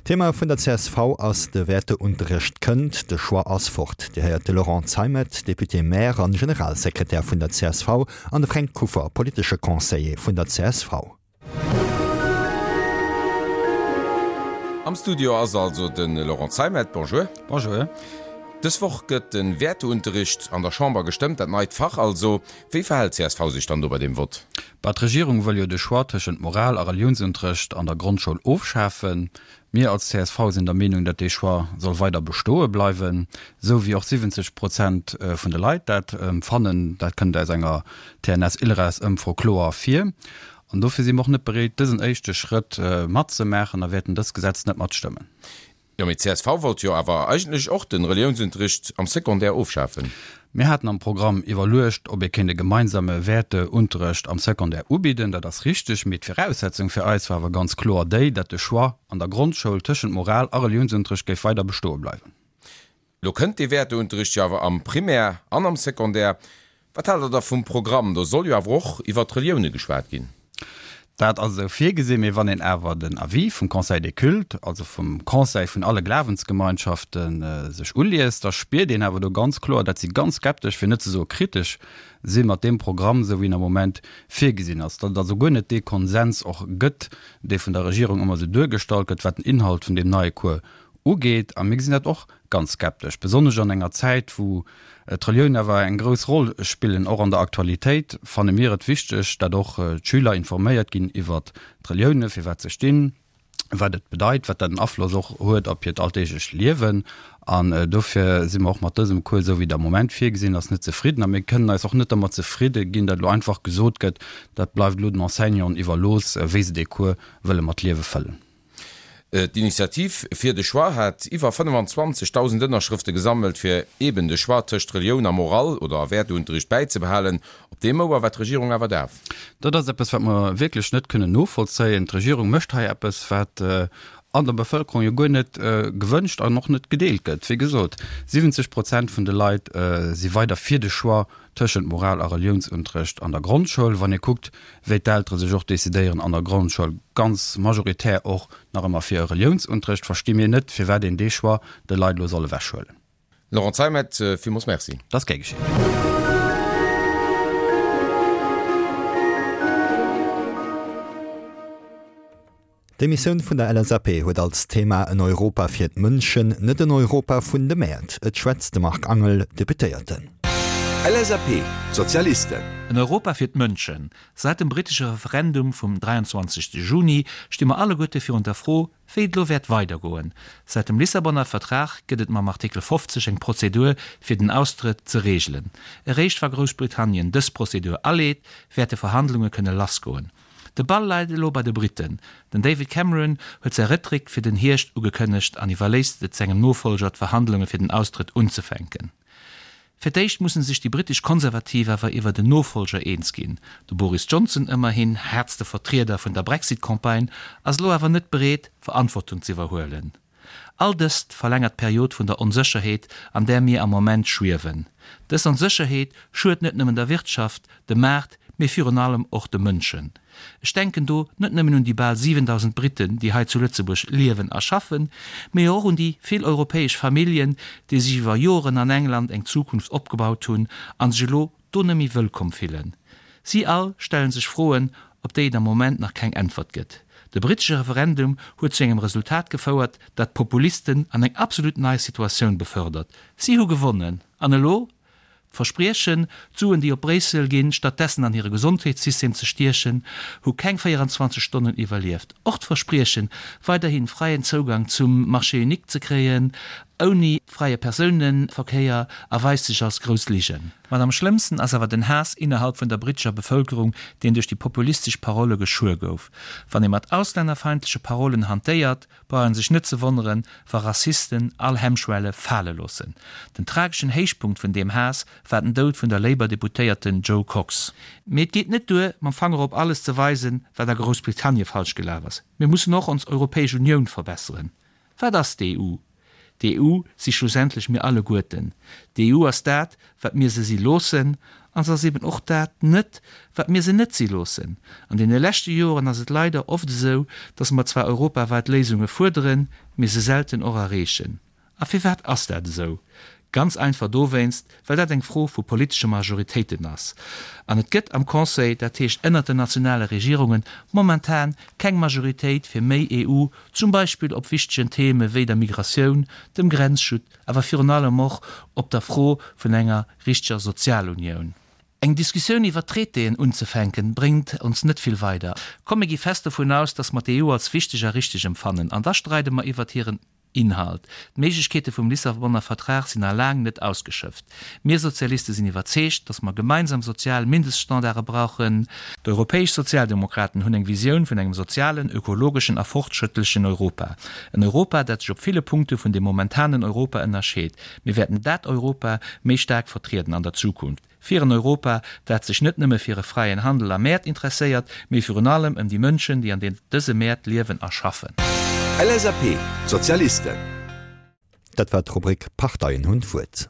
Thema vun der csv ass de Wäerteunterrecht kënnt, de Choix ass fort. Dir héiert de Laurent Zeimet, Député-maire an Generalsekretär vun der csv, an de Fränk Kuffer, politesche Conseiller vun der csv. Am Studio ass also de Laurent Zeimet. Bonjour. Bonjour. Dës Woch gëtt de Wäerteunterricht an der Chamber gestëmmt, dat neit Fach also. Wéi verhält csv sech dann do bei deem Vott? Bah, d'Regierung wëll jo de Choix tëschent Moral a Reliounsunterrecht an der Grondschoul ofschafen. Mir als csv sinn der Meenung, datt dee Choix soll weider bestoe bleiwen, esou wéi och 70 Prozent vun de Leit dat fannen. Dat kënnt aus enger TNS-Ilres-Ëmfro kloer ervir. An dofir si mer och net bereet, dësen éischte Schrëtt matzemaachen a wäerten dëst Gesetz net matstëmmen. Jo, mee csv wollt jo awer eigentlech och den Reliounsunterricht am Secondaire ofschafen. Mir haten am Programm iwwerluecht, ob ee kéint e gemeinsame Wäerteunterrecht am Secondaire ubidden. Dat ass richteg, mee d'Viraussetzung fir eis war awer ganz kloer déi, dat de Choix an der Grondschoul tëschent Moral a Reliounsunterrecht géif weider bestoe bleiwen. Lo kënnt dee Wäerteunterricht jo awer am Primaire an am Secondaire. Wat haalt Der da vum Programm? Do soll jo awer och iwwert d'Relioune geschwat ginn. Dat ass esou virgesinn, mee wann een awer den Avis vum Conseil des cultes, also vum Conseil vun alle Glawensgemeinschaften, sech uliest, da spiert een awer do ganz kloer, dat si ganz skeptesch, fir net ze soe kritesch si mat deem Programm, esou wéi en am Moment virgesinn ass. Datt et also guer net dee Konsens och gëtt, dee vun der Regierung ëmmer esou duergestallt gëtt, wat den Inhalt vun deem neie Cours ugeet. A mir gesinn dat och ganz skeptesch, besonnesch an enger Zäit, wou d'Reliounen awer eng grouss Roll spillen, och an der Aktualitéit, fanne mir et wichteg, dat och d'Schüler informéiert ginn iwwert d'Reliounen, fir wat se stinn, wat et bedeit, wat dat en Afloss och huet op hiert alldeeglecht Liewen. An dofir si mer och mat dësem Cours, esou wéi et am Moment virgesinn ass, net zefridden. A mir kënnen eis och net dermat zefridde ginn, dat elo einfach gesot gëtt, dat bleift elo den Enseignanten iwwerlooss, wéi se dee Cours wëlle mat Liewe fëllen. D'Initiativ fir de Choix hat iwwer 25.000 Ënnerschrëfte gesammelt, fir eeben de Choix tëscht Relioun a Moral oder a Wäerteunterricht bäizebehalen. Op deem Ouer war d'Regierung awer daf. Dat ass eppes, wat mer wierklech net kënnen novollzéien. D'Regierung mécht hei eppes, wat an der Bevëlkerung jo guer net gewënscht an och net gedeelt gëtt. Wéi gesot, 70 Prozent vun de Leit si weider fir de Choix tëschent Moral a Reliounsunterrecht an der Grondschoul, wann ee kuckt, wéi d'Eltere sech och decidéieren an der Grondschoul, ganz majoritär och nach ëmmer fir e Reliounsunterrecht, versti mir net, firwat een dee Choix de Leit elo soll ewechhuelen. Laurent Zeimet, villmools Merci. Dat ass gär geschéen. D'Emissioun vun der LSAP huet als Thema En Europa fir d'Mënschen, net en Europa vun de Mäert. Et schwätzt de Marc Angel, Deputéierten. LSAP, D'Sozialisten. En Europa fir d'Mënschen. Säit dem brittesche Referendum vum 23 Juni sti mer alleguerte virun der Fro, wéi et elo wäert weidergoen. Säit dem Lissabonner Vertrag gëtt et mam Artikel 50 eng Prozedur, fir den Austrëtt ze reegelen. Eréischt wa Groussbritannien dës Prozedur aleet, wäerte Verhandlunge kënne lassgoen. De Ball läit elo bei de Britten. Den David Cameron huet säi Réttréck fir den Hierscht ugekënnegt an iwwerléisst et sengem Nofollger d'Verhandlunge fir den Austrëtt unzefänken. Fir d'éischt musse sech déi brittesch Konservativ awer iwwert en Nofollger eens ginn. De Boris Johnson, ëmmerhin haartste Vertrieder vun der Brexit-Campagne, ass elo awer net bereet, Verantwortung z'iwwerhuelen. All dëst verlängert d'Period vun der Onsécherheet, an där mir am Moment schwiewen. Dës Onsécherheet schued net nëmmen der Wirtschaft, dem Maart, mee virun allem och de Mënschen. Ech denken do net nëmmen un déi bal 7.000 Britten, déi hei zu Lëtzebuerg liewen a schaffen, mee och un déi vill europäesch Familljen, déi sech iwwer Joren an England eng Zukunft opgebaut hunn a sech elo do net méi wëllkomm fillen. Si all stelle sech Froen, op déi et am Moment nach keng Äntwert gëtt. De brittesche Referendum huet zu engem Resultat gefouert, dat d'Populisten an eng absolut nei Situatioun befördert. Si hu gewonnen. An elo? D'Verspriechen, d'Suen déi op Bréissel ginn, stattdessen an hire Gesondheetssystem ze stiechen, hu keng 24 Stonnen iwwerlieft. Och d'Verspriechen, weiderhi fräien Zougang zum Marché unique ze kréien, ouni fräie Persounenverkéier, erweist sech als grouss Ligen. Mat am schlëmmsten ass awer den Haass innerhalb vun der brittescher Bevëlkerung, deen duerch déi populistesch Parolle geschuer gouf. Wann ee mat auslännerfeindleche Parollen hantéiert, brauch een sech net ze wonneren, wa Rassisten all Hemmschwelle fale loossen. Den trageschen Héichpunkt vun deem Haass war den Doud vun der Labour-Deputéierten Jo Cox. Mee et geet net duer, mam Fanger op alles ze weisen, wat a Groussbritannie falsch gelaf ass. Mir mussen och ons Europäesch Unioun verbesseren. Wat ass d'EU? D'EU si schlussendlech mir alleguerten. D'EU ass dat, wat mir se si loossen, an se ass eben och dat net, wat mir se net si loossen. An deene leschte Joren ass et leider oft esou, dass mer zwar europaweit Léisunge fuerderen, mee se selten och erreechen. A firwat ass dat esou? Ganz einfach dowéinst, well dat eng Fro vu politesche Majoritéiten ass. An et gëtt am Conseil, dat heescht ënnert den nationale Regierungen, momentan keng Majoritéit fir méi EU, zum Beispill op wichtegen Theme wéi der Migratioun, dem Grenzschut, awer virun allem och op der Fro vun enger richteger Sozialunioun. Eng Diskussioun iwwer Traitéen unzefänken, bréngt ons net vill weider. Komm mir gi fest dovun aus, dass mer d'EU als wichteg a richteg empfannen, an da streide mer iwwert hiren Inhalt. D'Méiglechkeete vum Lissabonner Vertrag sinn nach laang net ausgeschöpft. Mir Sozialiste sinn iwwerzeegt, dass mer gemeinsam sozial Mindeststandarde brauchen. D'europäesch Sozialdemokraten hunn eng Visioun vun engem sozialen, ökologeschen a fortschrëttlechen Europa. En Europa, dat sech op ville Punkte vun dem momentanen Europa ënnerscheet. Mir wäerten dat Europa méi staark vertrieden an der Zukunft. Fir en Europa, dat sech net nëmme fir e fräien Handel a Mäert interesséiert, mee virun allem ëm déi Mënschen, déi an dëse Mäert liewen a schaffen. LSAP, Sozialisten. Dat war d'Rubrik Parteien hunn d'Wuert.